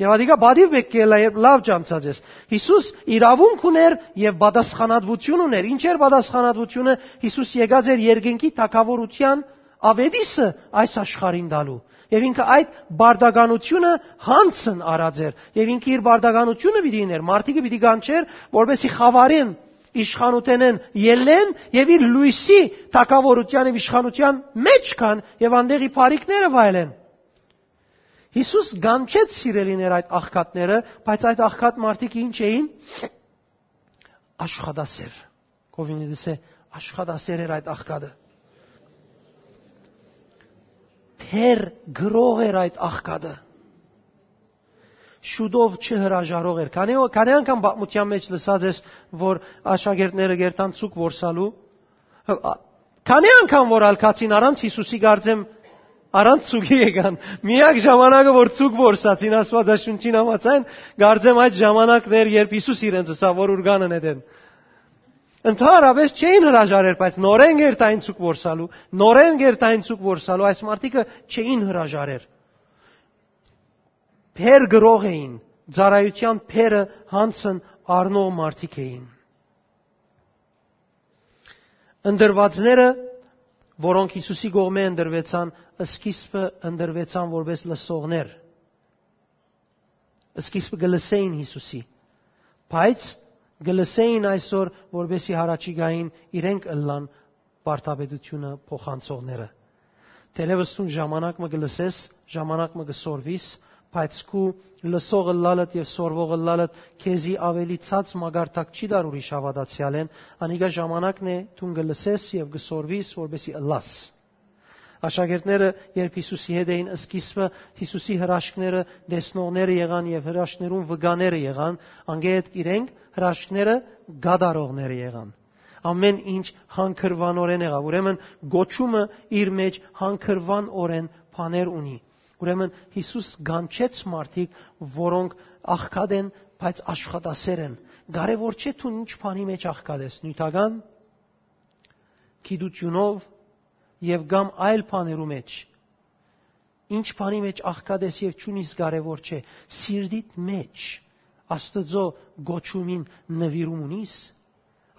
Եւ ատիկա պատիւ պէտք է ըլլայ, երբ լաւ ճանչած ես։ Յիսուս իրաւունք ունէր եւ պատասխանատուություն ունէր։ Ինչ էր պատասխանատուությունը։ Յիսուս եկած էր երկնքի թագաւորութեան աւետիսը այս աշխարհին տալու։ Եւ ինքը այդ պարտականությունը յանձն առած էր։ Եւ ինքը իր պարտականությունը պիտի իներ, մարդիկը պիտի կանչեր, որպեսզի խաւարեն, իշխանութենեն ելլեն եւ իր լոյսի թագաւորութեան եւ իշխանութեան մէջ գան եւ անտեղի բարիքները վայելեն։ Յիսուս կանչեց, սիրելիներ, այդ աղքատները, բայց այդ աղքատ մարդիկ ինչ էին։ Աշխատասեր։ Քովին ետս է, աշխատասեր էր այդ աղքատը։ Բեռ կրող էր այդ աղքատը։ Շուտով չհրաժարող էր։ Քանի, քանի՞ անգամ պատմութեան մէջ լսած ես, որ աշակերտները կ'երթան ցուկ որսալու։ Քանի՞ անգամ որ ալ գացին առանց Յիսուսի, կարծեմ, առանց ցուկի եկան։ Միակ ժամանակը, որ ցուկ որսացին, Աստուածաշունչին համաձայն, կարծեմ, այդ ժամանակն էր, երբ Յիսուս իրենց ըսաւ, որ ուրկանը նետեն։ Ընդհանրապէս չէին հրաժարեր, բայց նորէն գերտային ցուկ որսալու, նորէն գերտային ցուկ որսալու, այս մարդիկը չէին հրաժարեր։ Փեր գրող էին, ծառայութեան փերը հանցն առնող մարդիկ էին։ Ընտրուածները, որոնք Յիսուսի կողմէ ընտրուեցան, սկիզբը ընտրուեցան որպես լսողներ։ Սկիզբը կը լսէին Յիսուսի, բայց կը լսէին այսօր, որպեսզի յառաջիկային իրենք ըլլան վարդապետութիւնը փոխանցողները։ Թերեւս դուն ժամանակ մը կը լսես, ժամանակ մը կը սորվիս, բայց քու լսող ըլլալդ եւ սորվող ըլլալդ քեզի աւելի ցած մակարդակ չի տար ուրիշ հաւատացեալէն, անիկա ժամանակն է դուն կը լսես եւ կը սորվիս, որպեսզի ըլլաս։ Աշակերտները, երբ Յիսուսի հետ էին սկիզբը, Յիսուսի հրաշքները տեսնողները եղան եւ հրաշքներուն վկաները եղան, անկէ ետք իրենք հրաշքները կատարողները եղան։ Ամէն ինչ հանգրուանօրէն եղաւ։ Ուրեմն կոչումը իր մէջ հանգրուանօրէն բաներ ունի։ Ուրեմն Յիսուս կանչեց մարդիկ, որոնք աղքատ են, բայց աշխատասեր են։ Կարևոր չէ դուն ինչ բանի մէջ աղքատ ես, նիւթական գիտութիւնով եւ կամ այլ բաներու մէջ։ Ինչ բանի մէջ աղքատ ես եւ չունիս կարեւոր չէ, սիրտիդ մէջ Աստուծոյ գոչումին նուիրում ունիս,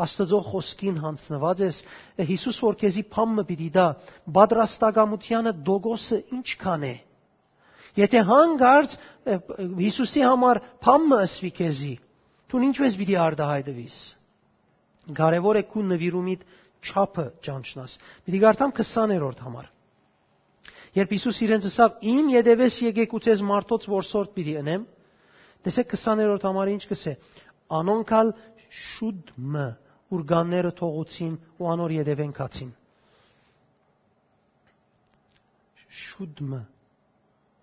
Աստուծոյ խօսքին յանձնուած ես։ Յիսուս որ քեզի փամ մը պիտի տայ, պատրաստակամութեանը տոկոսը ինչքան է։ Եթե հանկարծ, ը, Յիսուսի համար փամ մը ըսուի քեզի, դուն ինչպես պիտի արտահայտվիս։ Կարեւոր է քու նուիրումիդ չափը ճանչնաս։ Պիտի կարդամ քսաներորդ համար։ Երբ Յիսուս իրենց ըսաւ. «Իմ ետևէս եկէք ու ձեզ մարդոց որսորդ պիտի ընեմ», տեսէք քսաներորդ համարը ինչ կսէ. «Անոնք ալ շուտ մը ուրկանները թողուցին ու անոր ետևէն գացին»։ Շուտ մը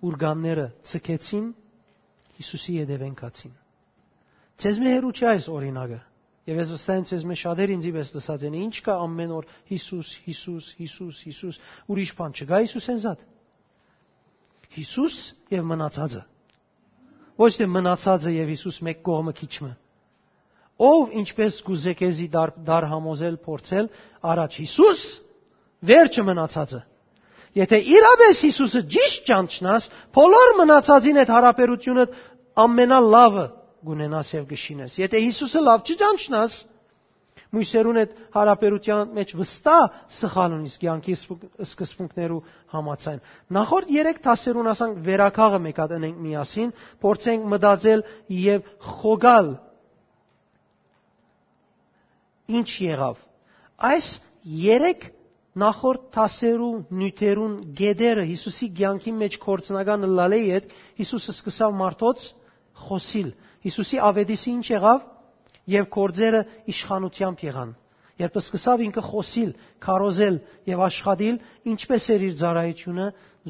ուրկանները ձգեցին, Յիսուսի ետևէն գացին։ Ձեզմէ հեռու չէ այս օրինակը։ Եւ ես վստահ եմ, ձեզմէ շատեր ինձի պէս լսած են. «Ի՞նչ կայ ամէն օր Յիսուս, Յիսուս, Յիսուս, Յիսուս, ուրիշ բան չկայ Յիսուսէն զատ»։ Յիսուս եւ մնացածը։ Ոչ թէ մնացածը եւ Յիսուս մէկ կողմը քիչ մը։ Ով ինչպես կուզէ քեզի դար, դար համոզել, փորձել, առաջ Յիսուս, վերջը մնացածը։ Եթե իրապէս Յիսուսը ճիշդ ճանչնաս, բոլոր մնացածին հետ յարաբերութիւնը ամենալավը կունենաս եւ կշինես։ Եթե Յիսուսը լաւ չճանչնաս, մոյսերուն հետ յարաբերութեան մեջ վստահ սխալ ունիս կեանքի սկզբունք-, սկզբունքներու համաձայն։ Նախորդ երեք դասերուն, ասանք, վերակաղը մէկ հատ ընենք միասին, փորձենք մտածել եւ խոկալ ինչ եղաւ։ Այս երեք նախորդ դասերու նիւթերուն գետերը Յիսուսի կեանքի մեջ գործնական ըլլալէ յետ, Յիսուս սկսաւ մարդոց խօսիլ։ Յիսուսի աւետիսը ինչ եղաւ, եւ գործերը իշխանութեամբ եղան։ Երբ սկսաւ ինքը խօսիլ, քարոզել եւ աշխատիլ, ինչպես էր իր ծառայութիւնը,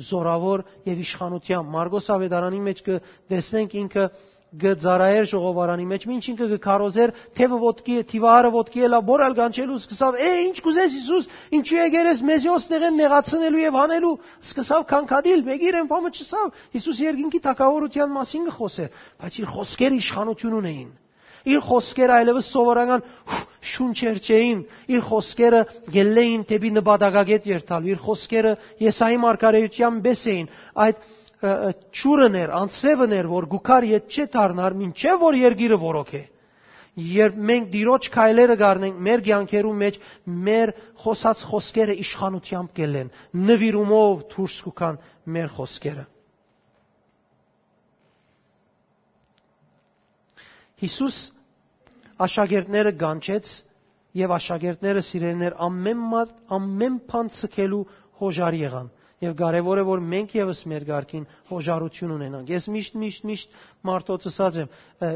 զորաւոր եւ իշխանութեամբ։ Մարկոս աւետարանի մեջ կը տեսնենք ինքը կը ծառայէր ժողովարանի մեջ, մինչ ինքը կը քարոզէր, թեւը ոտքի է, թիվարը ոտքի է, լա, բոր ալ կանչելու սկսաւ. «Է, ինչ կուզես, Յիսուս, ինչու եկեր ես մեզի օս տեղեն նեղացնելու եւ հանելու»։ Սկսաւ քանքատիլ, մեկի իրեն փամը չսավ, Յիսուս երկինքի թագաւորութեան մասին կը խօսէր, բայց իր խօսքերը իշխանութիւն ունեին։ Իր խօսքերը այլեւս սովորական շունչեր չէին, իր խօսքերը գելլէին դեպի նպատակագետ երթալ, իր խօսքերը Եսայի մարգարեութեան պէս էին, այդ, ը, ը, ջուրն էր, անձրեւն էր, որ գուքար յետ չէ դառնար, մինչեւ որ երկիրը որոք է։ Երբ մենք Տիրոջ քայլերը կառնենք մեր կեանքերու մեջ, մեր խօսած խօսքերը իշխանութեամբ կելլեն, նվիրումով դուրս կուքան մեր խօսքերը։ Յիսուս աշակերտները կանչեց եւ աշակերտները, սիրելիներ, ամեն մատ, ամեն բան ցկելու հոժար եղան։ Եւ կարեւոր է, որ մենք եւս մեր կարգին հոժարութիւն ունենանք։ Ես միշտ, միշտ, միշտ մարդոց ըսած եմ, ը,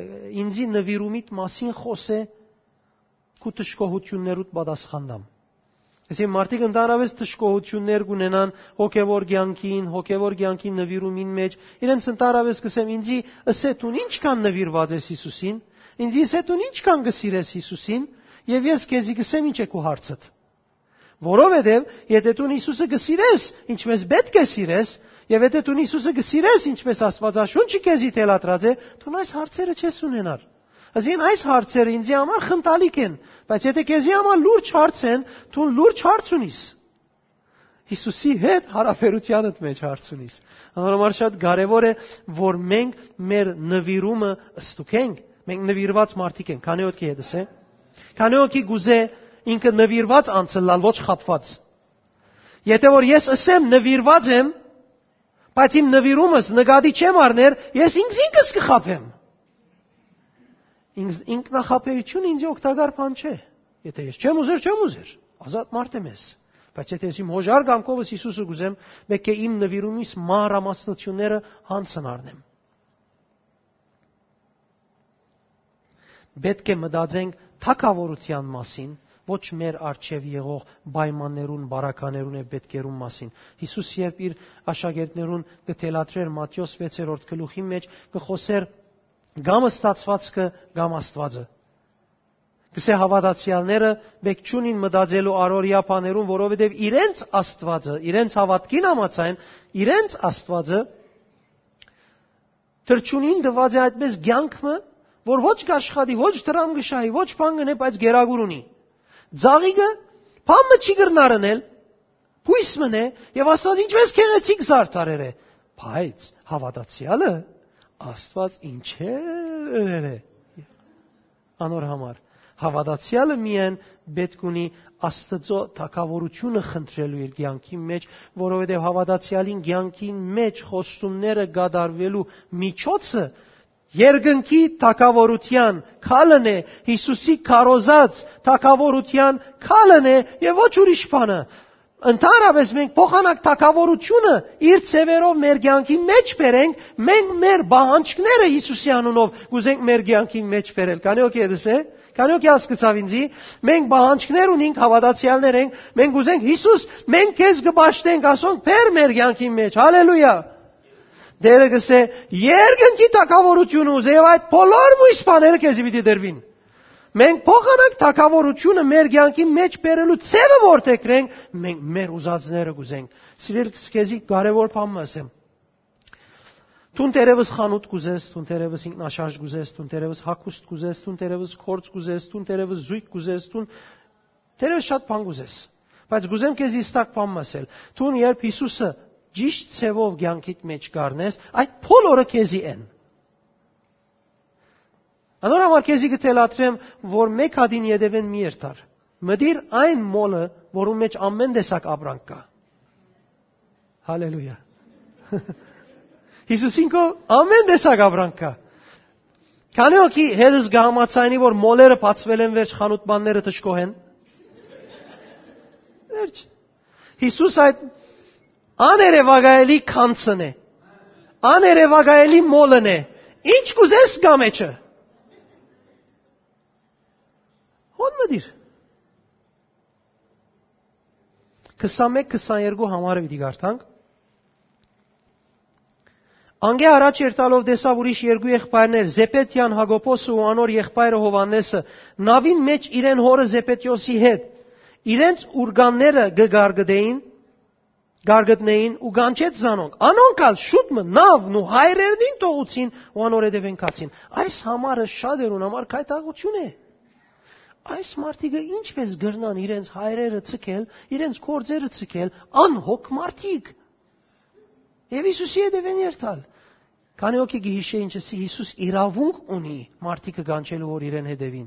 ինձի նվիրումիդ մասին խօսէ, քու դժգոհութիւններուդ պատասխան տամ։ Այսինքն մարդիկ ընդհանրապես դժգոհութիւններ կունենան հոգեվոր կեանքին, հոգեվոր կեանքին նվիրումին մեջ, իրենց ընդհանրապես կսեմ, ինձի ըսե դուն ինչքան նվիրված ես Յիսուսին, ինձի ըսե դուն ինչքան կը սիրես Յիսուսին, եւ ես քեզի կսեմ ինչ է քու հարցդ։ Որովհետեւ եթե դուն Յիսուսը կը սիրես, ինչպես պէտք է սիրես, եւ եթե դուն Յիսուսը կը սիրես, ինչպես Աստուածաշունչը քեզի թելադրած է, դուն այս հարցերը չես ունենար։ Այսինքն այս հարցերը ինձի համար խնդալիք են, Բայց եթէ քեզի համար լուրջ հարց են, դուն լուրջ հարց ունիս։ Յիսուսի հետ յարաբերութեանդ մէջ հարց ունիս։ Անոր համար շատ կարեւոր է, որ մենք մեր նվիրումը ստուգենք։ Մենք նվիրված մարդիկ ենք, քանի՞ օդքի հետս է։ Քանի՞ օդքի գուզե ինքը նվիրված անցլալ, ոչ խաբված։ Եթե որ ես ըսեմ նվիրված եմ, բայց իմ նվիրումս նկատի չեմ առներ, ես ինքզինքս կը խաբեմ։ Ինքս-, ինքնախաբեությունը ինձ օգտակար բան չէ։ Եթե ես չեմ ուզեր, չեմ ուզեր։ Ազատ մարդ եմ ես։ Բայց եթե ես իմ հոժար կամքովս Յիսուսը կուզեմ, պէտք է իմ նվիրումիս մանրամասնությունները յանցն առնեմ։ Պէտք է մտածենք թագաւորութեան մասին, ոչ մեր առջեւ եղող պայմաններուն, բարականերուն եւ պէտքերուն մասին։ Յիսուս երբ իր աշակերտներուն կը թելադրէր Մատթէոս վեցերորդ գլուխին մէջ, կը խօսէր կամ ստացուածքը, կամ Աստուածը։ Կսէ հաւատացեալները պէտք չունին մտածելու առօրեայ բաներուն, որովհետեւ իրենց Աստուածը, իրենց հաւատքին համաձայն, իրենց Աստուածը թռչունին տուած է այդպես կեանք մը, որ ոչ կաշխատի, ոչ դրամ կը շահի, ոչ բան կ'ընէ, բայց գերագուր ունի։ Ձաղիկը բան մը չի կրնար ընել, բոյս մըն է, եւ Աստուած ինչպես գեղեցիկ զարդարեր է, բայց հաւատացեալը Աստուած ինչեր ըրեր է անոր համար։ Հաւատացեալը միայն պէտք ունի Աստուծոյ թագաւորութիւնը խնդրելու իր կեանքին մէջ, որովհետեւ հաւատացեալին կեանքին մէջ խոստումները կատարուելու միջոցը երկնքի թագաւորութեան քալն է, Յիսուսի քարոզած թագաւորութեան քալն է եւ ոչ ուրիշ բանը։ Ընդհանրապես մենք փոխանակ թագաւորութիւնը իր ձեւերով մեր կեանքի մէջ բերենք, մենք մեր պահանջները Յիսուսի անունով կ'ուզենք մեր կեանքին մէջ բերել։ Քանի՞ օդքի հետս է, քանի՞ օդքի հասկցաւ ինձի, մենք պահանջներ ունենք, հաւատացեալներ ենք, մենք ուզենք Յիսուս, մենք քեզ կը պաշտենք, ասոնք բեր մեր կեանքին մէջ։ Հալելույա։ Տէրը կ'ըսէ, երկնքի թագաւորութիւնը ուզէ եւ այդ բոլոր մոյս բաները քեզի պիտի տրուին։ Մենք փոխանակ թագաւորութիւնը մեր կեանքի մէջ բերելու ձեւը որդեգրենք, մենք մեր ուզածները կ'ուզենք։ Սիրել, քեզի կարեւոր բան մը ասեմ։ Դուն թերեւս խանութ կ'ուզես, դուն թերեւս ինքնաշարժ կ'ուզես, դուն թերեւս հագուստ կ'ուզես, դուն թերեւս գործ կ'ուզես, դուն թերեւս զոյգ կ'ուզես, դուն թերեւս շատ բան կ'ուզես։ Բայց կ'ուզեմ քեզի հստակ բան մը ասել։ Դուն երբ Յիսուսը ճիշդ ձևով կեանքիդ մէջ կ'առնես, այդ բոլորը քեզի են։ Անոր համար քեզի կը թելադրեմ, որ մէկ հատին ետեւէն մի երթար։ Մտիր այն մոլը, որուն մէջ ամեն տեսակ ապրանք կայ։ Հալելույա։ Յիսուսին քով ամեն տեսակ ապրանք կայ։ Քանի՞ օդքի հետս կը համաձայնի, որ մոլերը բացվել են վերջ, խանութ-բանները դժգոհ են։ Վերջ։ Յիսուս այդ աներեւակայելի գանձն է, աներեւակայելի մոլն է։ Ինչ կ'ուզես կայ մեջը։ Հոն մտիր։ Քսանմէկ քսաներկու համարը պիտի կարդանք։ Անկէ առաջ երթալով տեսաւ ուրիշ երկու եղբայրներ, Զեպետեան Յակոբոսը ու անոր եղբայրը Յովհաննէսը, նաւին մէջ իրեն հօրը Զեպետէոսի հետ։ Իրենց ուրկանները կը գարգտէին, գարգտնէին ու կանչեց զանոնք։ Անոնք ալ շուտ մը նաւն ու հայրերնին թողուցին ու անոր հետեւէն գացին։ Այս համարը շատերուն համար գայթակղութիւն է։ Այս մարդիկը ինչպես կրնան իրենց հայրերը ցկել, իրենց գործերը ցկել, անհոգ մարդիկ։ Եւ Յիսուսի հետեւէն երթալ։ Քանի՞ օդքի կը յիշէ ինչ ասի, Յիսուս իրաւունք ունի մարդիկը կանչելու, որ իրեն հետեւին։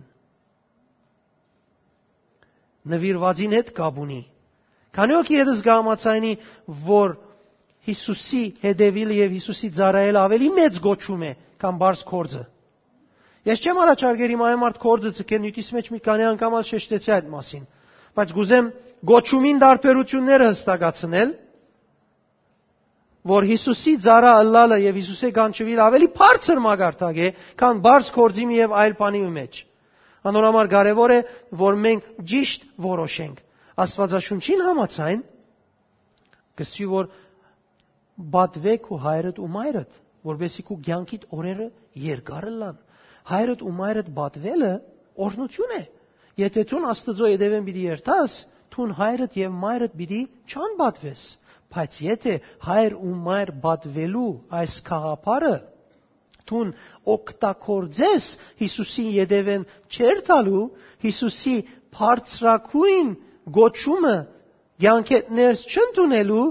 Նվիրվածին հետ կապ ունի։ Քանի՞ օդքի հետս կը համաձայնի, որ Յիսուսի հետեւիլը եւ Յիսուսի ծառայելը ավելի մեծ կոչում է, քան պարզ գործը։ Ես չեմ առաջարկեր իմ այն մարդ գործը ցկեն, նիւթիս մեջ մի քանի անգամ ալ շեշտեցի այդ մասին, բայց կ'ուզեմ կոչումին տարբերությունները հստակացնել, որ Յիսուսի ծառայ ըլլալը եւ Յիսուսէ կանչուիլ ավելի բարձր մակարդակ է, քան պարզ գործի մի եւ այլ բանի մը մեջ։ Անոր համար կարեւոր է, որ մենք ճիշտ որոշենք։ Աստուածաշունչին համաձայն, կսուի, որ «Պատուէ քու հայրդ ու մայրդ, որպեսզի քու կեանքիդ օրերը երկար ըլլան»։ Հայրդ ու մայրդ պատուելը օրհնութիւն է։ Եթե դուն Աստուծոյ հետեւէն պիտի երթաս, դուն հայրդ եւ մայրդ պիտի չանպատուես։ Բայց եթե հայր ու մայր պատուելու այս գաղափարը Դուն օգտագործես Յիսուսին ետեւէն չերթալու, Յիսուսի բարձրագոյն գոչումը կեանքէդ ներս չընդունելու,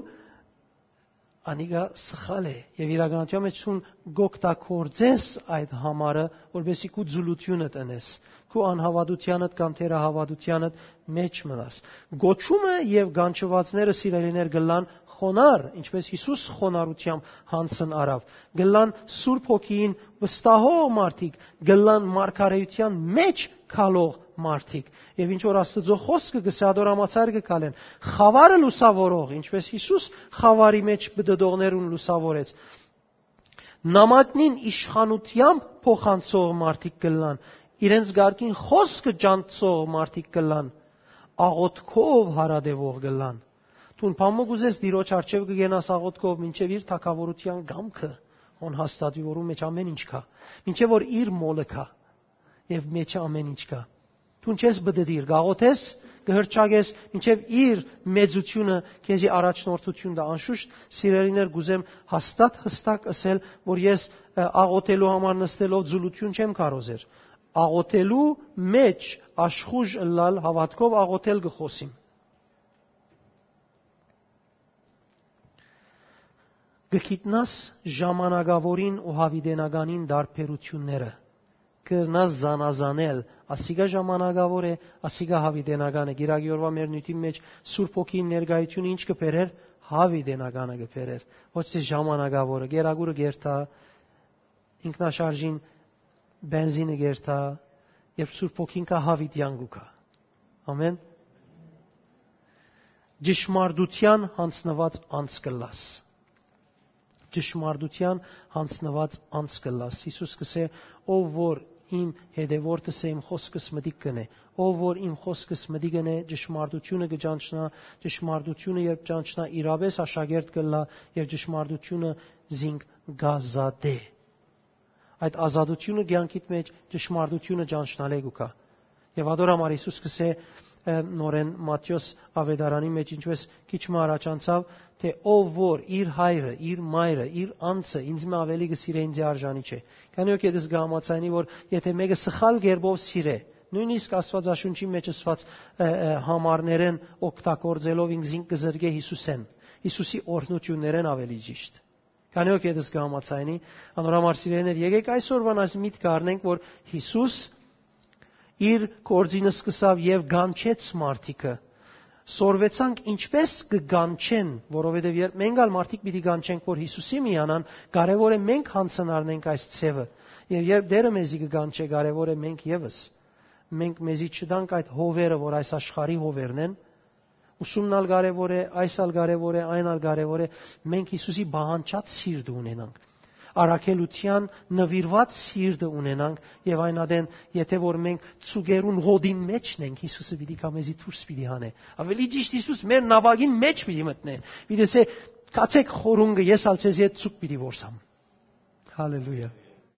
անիկա սխալ է, եւ իրականության մէջ դուն կօգտագործես այդ համարը, որպեսզի քու ձուլութիւնը տնես, քու անհաւատութեանդ կամ թերահաւատութեանդ մէջ մնաս։ Գոչումը եւ կանչուածները, սիրելիներ, կ'ըլլան խոնար, ինչպէս Յիսուս խոնարհութեամբ յանձն առաւ, կ'ըլլան Սուրբ Հոգիին վստահող մարդիկ, կ'ըլլան մարգարէութեան մէջ քալող մարդիկ։ Եւ ինչ որ Աստուծոյ խօսքը կ'ըսէ, ատոր համաձայնը կը քալեն։ Խաւարը լուսաւորող, ինչպէս Յիսուս խաւարի մէջ պտտողներուն լուսաւորեց, նամակնին իշխանութեամբ փոխանցող մարդիկ կ'ըլլան, իրենց կարգին խօսքը ջանցող մարդիկ կ'ըլլան, աղոթքով հարատեւող կ'ըլլան։ Դուն բան մը կ'ուզես, Տիրոջ առջեւ կը գնաս աղոթքով, մինչեւ իր թագաւորութեան կամքը հոն հաստատուի, որուն մէջ ամէն ինչ կայ, մինչեւ որ իր մոլը կայ եւ մէջը ամէն ինչ կայ։ Դուն չես պտտիր, կ'աղոթես, կը հռչակես, մինչեւ իր մեծութիւնը քեզի առաջնորդութիւն տայ։ Անշուշտ, սիրելիներ, կ'ուզեմ հաստատ, յստակ ըսել, որ ես, ը, աղոթելու համար նստելով ձուլութիւն չեմ քարոզեր։ Աղոթելու մէջ աշխուժ ըլլալ, հաւատքով աղոթել կը խօսիմ։ Կը գիտնաս ժամանակաւորին ու յաւիտենականին տարբերութիւնները։ Կրնաս զանազանել, ասիկա ժամանակաւոր է, ասիկա յաւիտենական է։ Կիրակի օրուայ մեր նիւթին մէջ Սուրբ Հոգին ներկայությունը ինչ կը բերէր, յաւիտենականը կը բերէր, ոչ թէ ժամանակաւորը։ Կերակուրը կերթայ, ինքնաշարժին բենզինը կերթայ, երբ Սուրբ Հոգին կայ, յաւիտեան կու գայ։ Ամէն։ Ճշմարտութեան յանձնուած անձ կ'ըլլաս։ Ճշմարտութեան յանձնուած անձ կ'ըլլաս։ Յիսուս կ'ըսէ. «Ով որ իմ հետեւորդս է, իմ խօսքս մտիկ կ'ընէ։ Ով որ իմ խօսքս մտիկ կ'ընէ, ճշմարտութիւնը կը ճանչնայ, ճշմարտութիւնը երբ ճանչնայ, իրապէս աշակերտ կ'ըլլայ եւ ճշմարտութիւնը զինք կ'ազատէ»։ Այդ ազատութիւնը կեանքիդ մէջ ճշմարտութիւնը ճանչնալէ կու գայ։ Եւ ատոր համար Յիսուս կ'ըսէ, ը, նորէն Մատթէոս աւետարանի մէջ, ինչպէս քիչ մը առաջ անցաւ, թէ ով որ իր հայրը, իր մայրը, իր անձը ինձ մը աւելի կը սիրէ, ինձի արժանի չէ։ Քանի որ ետս կը համաձայնի, որ եթէ մէկը սխալ կերպով սիրէ, նոյնիսկ Աստուածաշունչի մէջ ըսուած, ը, ը, համարներէն օգտագործելով, ինքզինք կը զրկէ Յիսուսէն, Յիսուսի օրհնութիւններէն, աւելի ճիշդ։ Քանի որ ետս կը համաձայնի, անոր համար, սիրելիներ, եկէք այսօրուան այս միտքը առնենք, որ Յիսուս իր գործին սկսաւ եւ կանչեց մարդիկը։ Սորվեցանք ինչպէս կը կանչեն, որովհետեւ երբ մենք ալ մարդիկ պիտի կանչենք, որ Յիսուսի միանան, կարեւոր է մենք յանձն առնենք այս ձեւը։ Եւ երբ Տէրը մեզի կը կանչէ, կարեւոր է մենք եւս, մենք մեզի չտանք այդ հովերը, որ այս աշխարհի հովերն են, ուսումն ալ կարեւոր է, այս ալ կարեւոր է, այն ալ կարեւոր է, մենք Յիսուսի պահանջած սիրտը ունենանք, առաքելութեան նուիրուած սիրտը ունենանք, եւ այն ատեն, եթէ որ մենք ծուկերուն հոտին մէջ ենք, Յիսուսը պիտի գայ, մեզի դուրս պիտի հանէ։ Աւելի ճիշդ, Յիսուս մեր նաւակին մէջ պիտի մտնէ, պիտի ըսէ. «Գացէք խորունկը, ես ալ ձեզի հետ ծուկ պիտի որսամ»։ Հալելույա։